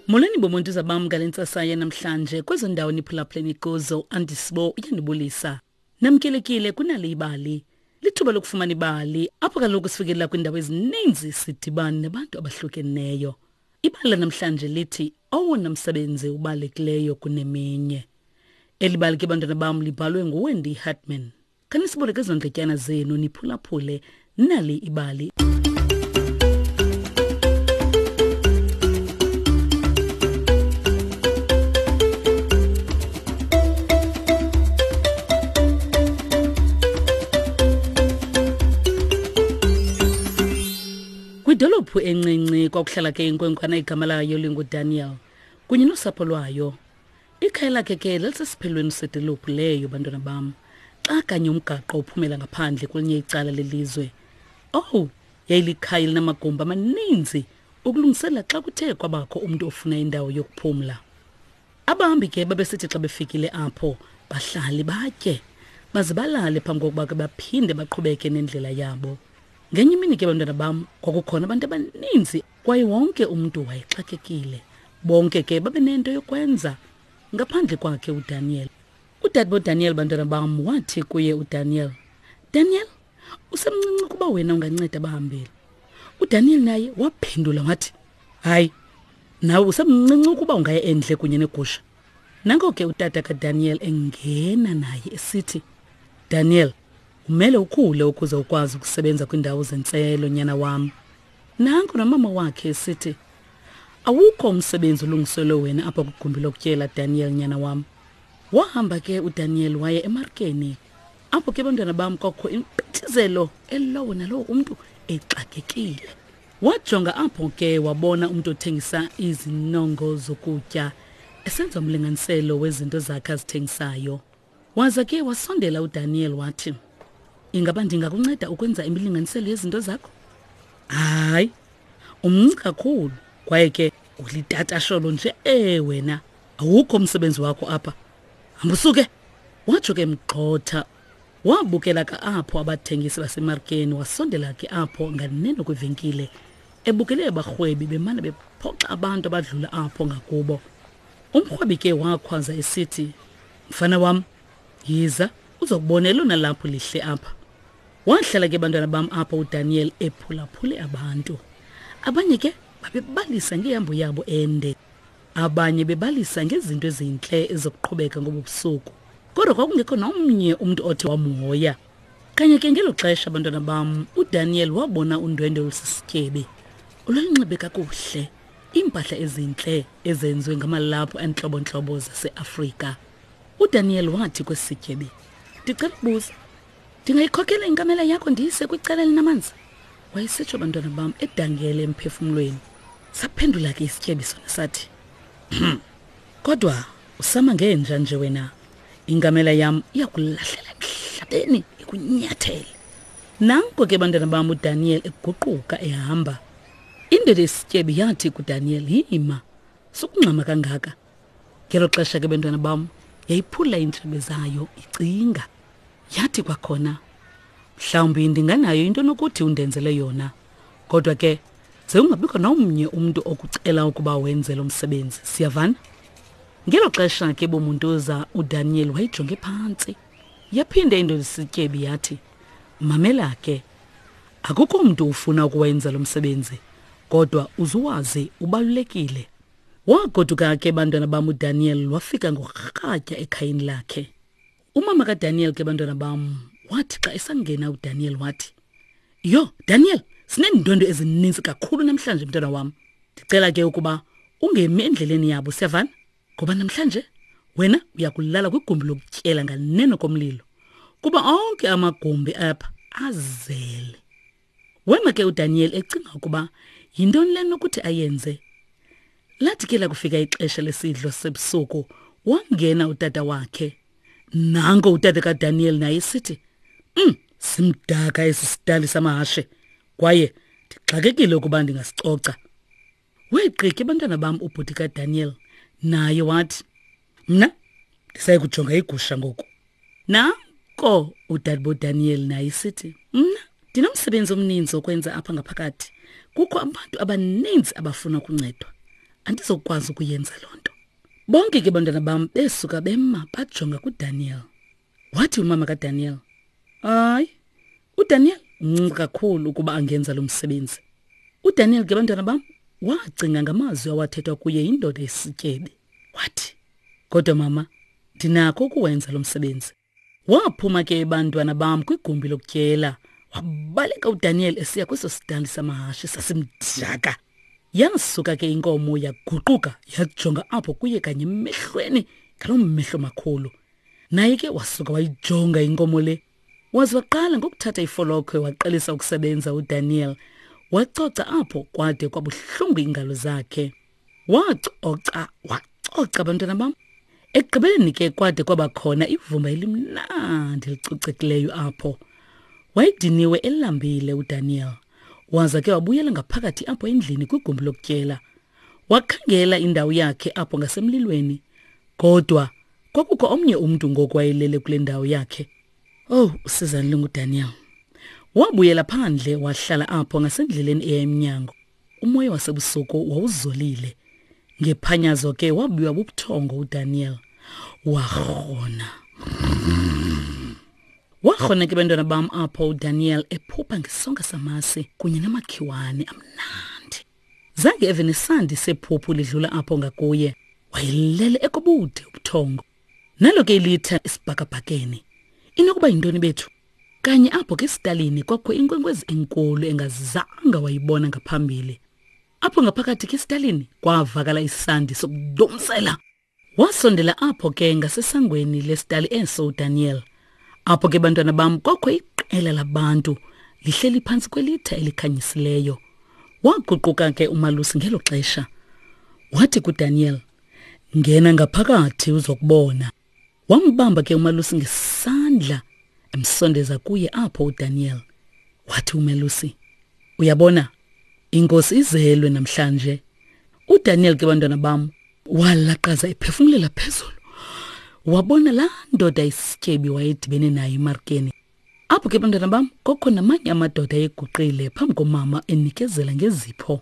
Molweni bomuntu bam ngale ntsasa yanamhlanje kwezo ndawo niphulaphuleni kuzo andisibo uyanibulisa. Namkelekile kunale ibali. Lithuba lokufumana ibali apho kaloku sifikelela kwiindawo ezininzi sidibane nabantu abahlukeneyo. Ibali lanamhlanje lithi owona msebenzi ubalulekileyo kuneminye. Eli bali ke bantwana bam libhalwe nguWendy Hartman. Khanisiboleke ezo ndletyana zenu niphulaphule nali ibali. Kwidolophu encinci kwakuhlala ke inkwenkwana igama layo linguDaniel kunye nosapho lwayo. Ikhaya lakhe ke lalisesiphelweni sedolophu leyo bantwana bam. Xa kanye umgaqo uphumela ngaphandle kwelinye icala lelizwe. Owu, yayilikhaya elinamagumbi amaninzi ukulungisela xa kuthe kwabakho umntu ofuna indawo yokuphumla. Abahambi ke babesithi xa befikile apho bahlale batye baze balale phambi kokuba ke baphinde baqhubeke nendlela yabo. Ngenye imini ke bantwana bam kwakukhona abantu abaninzi kwaye wonke umntu wayexakekile. Bonke ke babenento yokwenza ngaphandle kwakhe uDaniel. Udade boDaniel bantwana bam wathi kuye uDaniel, Daniel, usemncinci ukuba wena unganceda abahambeli. UDaniel naye waphendula wathi, Hayi, nawe usemncinci ukuba ungaya endle kunye negusha. Nanko ke utata kaDaniel engena naye esithi, Daniel, umele ukhule ukuze ukwazi ukusebenza kwiindawo zentselo, nyana wam. Nanko nomama wakhe esithi, Awukho umsebenzi olungiselwe wena apha kwigumbi lokutyela, Daniel, nyana wam. Wahamba ke uDaniel waya emarkeni. Apho ke bantwana bam kwakho impithizelo elowo nalowo umntu exakekile. Wajonga apho ke wabona umntu othengisa izinongo zokutya esenza umlinganiselo wezinto zakhe azithengisayo. Waza ke wasondela uDaniel wathi, Ingaba ndingakunceda ukwenza imilinganiselo yezinto zakho? Hayi, umncinci kakhulu kwaye ke ulitatasholo nje e wena awukho umsebenzi wakho apha. Hamba usuke. Watsho ke mgxotha. Wabukela ka apho abathengisi basemarkeni wasondela ke apho nganeno kwivenkile ebukele abarhwebi bemane bephoxa abantu abadlula apho ngakubo. Umrhwebi ke wakhwaza esithi, Mfana wam, yiza uzokubona elona laphu lihle apha. Wahlala ke bantwana bam apho uDaniel ephulaphule abantu. Abanye ke babebalisa ngehambo yabo ende. Abanye bebalisa ngezinto ezintle ezokuqhubeka ngobu busuku. Kodwa kwakungekho nomnye umntu othe wamhoya. Kanye ke ngelo xesha bantwana bam, uDaniel wabona undwendwe olusisityebi. Olwalunxibe kakuhle. iimpahla ezintle ezenziwe ngamalaphu entlobontlobo zaseAfrika. UDaniel wathi kwesi sityebi, Ndicela ukubuza, ndingayikhokela inkamela yakho ndiyise kwicala elinamanzi? Wayesitsho bantwana bam edangele emphefumlweni. Saphendula ke isityebi sona sathi, hmm, kodwa usama ngenja nje wena. Inkamela yam iyakulahlela emhlabeni ikunyathele. Nanko ke bantwana bam uDaniel eguquka ehamba. Indoda esityebi yathi kuDaniel, yima, sukungxama kangaka. Ngelo xesha ke bantwana bam yayiphula iintshebe zayo icinga. Yathi kwakhona, mhlawumbi ndinganayo into nokuthi undenzele yona. Kodwa ke ze ungabikho nomnye umntu okucela ukuba wenze lo msebenzi. Siyavana? Ngelo xesha ke bomuntuza uDaniel wayijonge phantsi. Yaphinda indoda isityebi yathi, mamela ke, Akukho mntu ufuna ukuwenza lo msebenzi, kodwa uzuwazi ubalulekile. Wagoduka ke bantwana bam uDaniel wafika ngorhatya ekhayeni lakhe. Umama kaDaniel ke bantwana bam wathi xa esangena uDaniel wathi, Yho, Daniel, sineendwendwe ezininzi kakhulu namhlanje mntwana wam. Ndicela ke ukuba ungemi endleleni yabo, siyavana? Ngoba namhlanje wena uyakulala kwigumbi lokutyela nganeno komlilo kuba onke amagumbi apha azele. Wema ke uDaniel ecinga ukuba yintoni le nokuthi ayenze. Lathi ke lakufika ixesha lesidlo sebusuku wangena utata wakhe. Nanko utata kaDaniel naye esithi, simdaka esi sidali samahashe kwaye ndixakekile ukuba ndingasicoca. Weegqiki abantwana bam ubhuti kaDaniel naye wathi, mna ndisaye kujonga igusha ngoku. Nanko udadebo Daniel naye sithi, mna ndinomsebenzi omninzi okwenza apha ngaphakathi. Kukho abantu abaninzi abafuna ukuncedwa. Andizokwazi ukuyenza loo nto. Bonke ke bantwana bam besuka bema bajonga kuDaniel. Wathi umama kaDaniel, Hayi, uDaniel mncinci kakhulu ukuba angenza lo msebenzi. UDaniel ke bantwana bam wacinga ngamazwi awathethwa kuye yindoda esityebi. Wathi, Kodwa mama, ndinakho ukuwenza lo msebenzi. Waphuma ke bantwana bam kwigumbi lokutyela. Wabaleka uDaniel esiya kweso sidali samahashe sasimdaka. Yasuka ke inkomo yaguquka yajonga apho kuye kanye emehlweni ngaloo mehlo makhulu. Naye ke wasuka wayijonga inkomo le. Waze waqala ngokuthatha ifolokhwe waqalisa ukusebenza uDaniel. Wacoca apho kwade kwabuhlungu iingalo zakhe. Wacoca, wacoca bantwana bam. Ekugqibeleni ke kwade kwaba khona ivumba elimnandi elicocekileyo apho. Wayediniwe elambile uDaniel. Waza ke wabuyela ngaphakathi apho endlini kwigumbi lokutyela. Wakhangela indawo yakhe apho ngasemlilweni. Kodwa kwakukho omnye umntu ngoku wayelele kule ndawo yakhe. Oh, usizani lunguDaniel. Wabuyela phandle wahlala apho ngasendleleni eya emnyango. Umoya wasebusuku wawuzolile. Ngephanyazo ke wabuya bubuthongo uDaniel. Warhona. Warhona ke bantwana bam apho uDaniel ephupha ngesonka samasi kunye namakhiwane amnandi. Zange eve nesandi sephuphu lidlula apho ngakuye. Wayelele ekobude ubuthongo. Nalo ke ilitha esibhakabhakeni. Inokuba yintoni bethu? Kanye apho ke esitalini kwakho inkwenkwezi enkulu engazanga wayibona ngaphambili. Apho ngaphakathi ke esitalini kwavakala isandi sokudomsela. Wasondela apho ke ngasesangweni lesitali eso uDaniel. Apho ke bantwana bam kwakho iqela labantu lihleli phantsi kwelitha elikhanyisileyo. Waguquka ke umalusi ngelo xesha. Wathi kuDaniel, "Ngena ngaphakathi uzokubona." Wambamba ke umalusi ngesandla emsondeza kuye apho uDaniel. Wathi umalusi, "Uyabona, inkosi izelwe namhlanje." UDaniel ke bantwana bam walaqaza ephefumulela phezulu. Wabona laa ndoda isityebi wayedibene nayo emarkeni. Apho ke bantwana bam kokho namanye amadoda ayeguqile phambi komama enikezela ngezipho.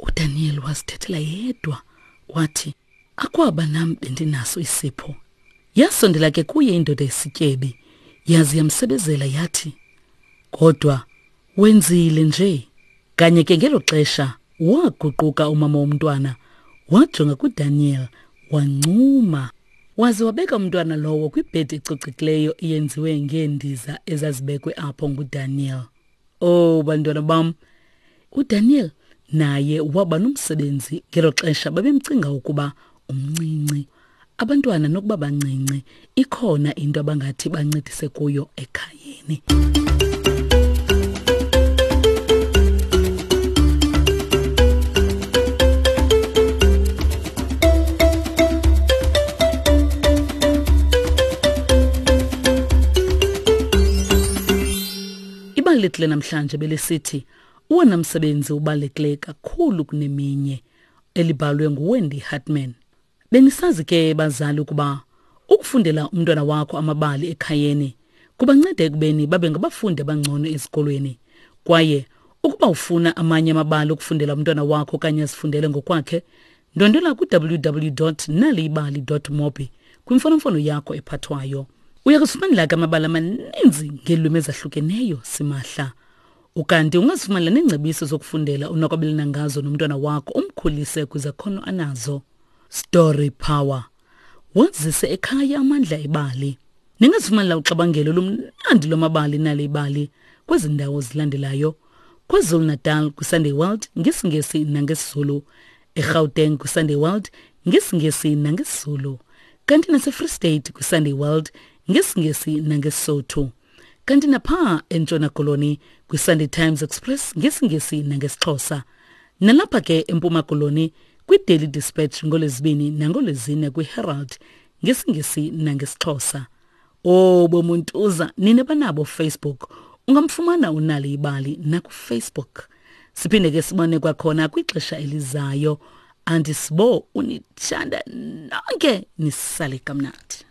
UDaniel wazithethela yedwa wathi, Akwaba nam bendinaso isipho. Yasondela ke kuye indoda esityebi, yaze yamsebezela yathi, Kodwa wenzile nje. Kanye ke ngelo xesha waguquka umama womntwana, wajonga kuDaniel, wancuma. Waze wabeka umntwana lowo kwibhedi ecocekileyo eyenziwe ngeendiza ezazibekwe apho nguDaniel. Oh bantwana bam, uDaniel naye waba nomsebenzi ngelo xesha babemcinga ukuba umncinci. Abantwana nokuba bancinci ikhona into abangathi bancedise kuyo ekhayeni. Ibali lethu lenamhlanje belisithi uwona msebenzi ubalulekileyo kakhulu kuneminye elibhalwe nguWendy Hartman. Benisazi ke bazali ukuba ukufundela umntwana wakho amabali ekhayeni kubanceda ekubeni babe ngabafundi abangcono ezikolweni. Kwaye ukuba ufuna amanye amabali okufundela umntwana wakho okanye azifundele ngokwakhe, ndwendwela ku-www.naliyibali.mobi kwimfonomfono yakho ephathwayo. Uya kuzifumanela ke amabali amaninzi ngeelwimi ezahlukeneyo simahla. Ukanti ungazifumanela neengcebiso zokufundela onokwabelana ngazo nomntwana wakho umkhulise kwizakhono anazo. Story Power. Wazise ekhaya amandla ebali. Ningazifumanela uxabangelo lumnandi lwamabali nale ibali kwezi ndawo zilandelayo. KwaZulu-Natal kwiSunday World ngesiNgesi nangesiZulu. eGauteng kwiSunday World ngesiNgesi nangesiZulu. Kanti naseFree State kwiSunday World ngesiNgesi nangeSotho. Kanti napha eNtshona Koloni kwiSunday Times Express ngesiNgesi nangesiXhosa. Nalapha ke eMpuma Koloni kwiDaily Dispatch ngolwezibini nangolwezine kwiHerald ngesiNgesi nangesiXhosa. Oh bomuntuza nina banabo Facebook ungamfumana unali ibali nakuFacebook. Siphinde ke sibone kwakhona kwixesha elizayo. Andisibo unithanda nonke nisale kamnandi.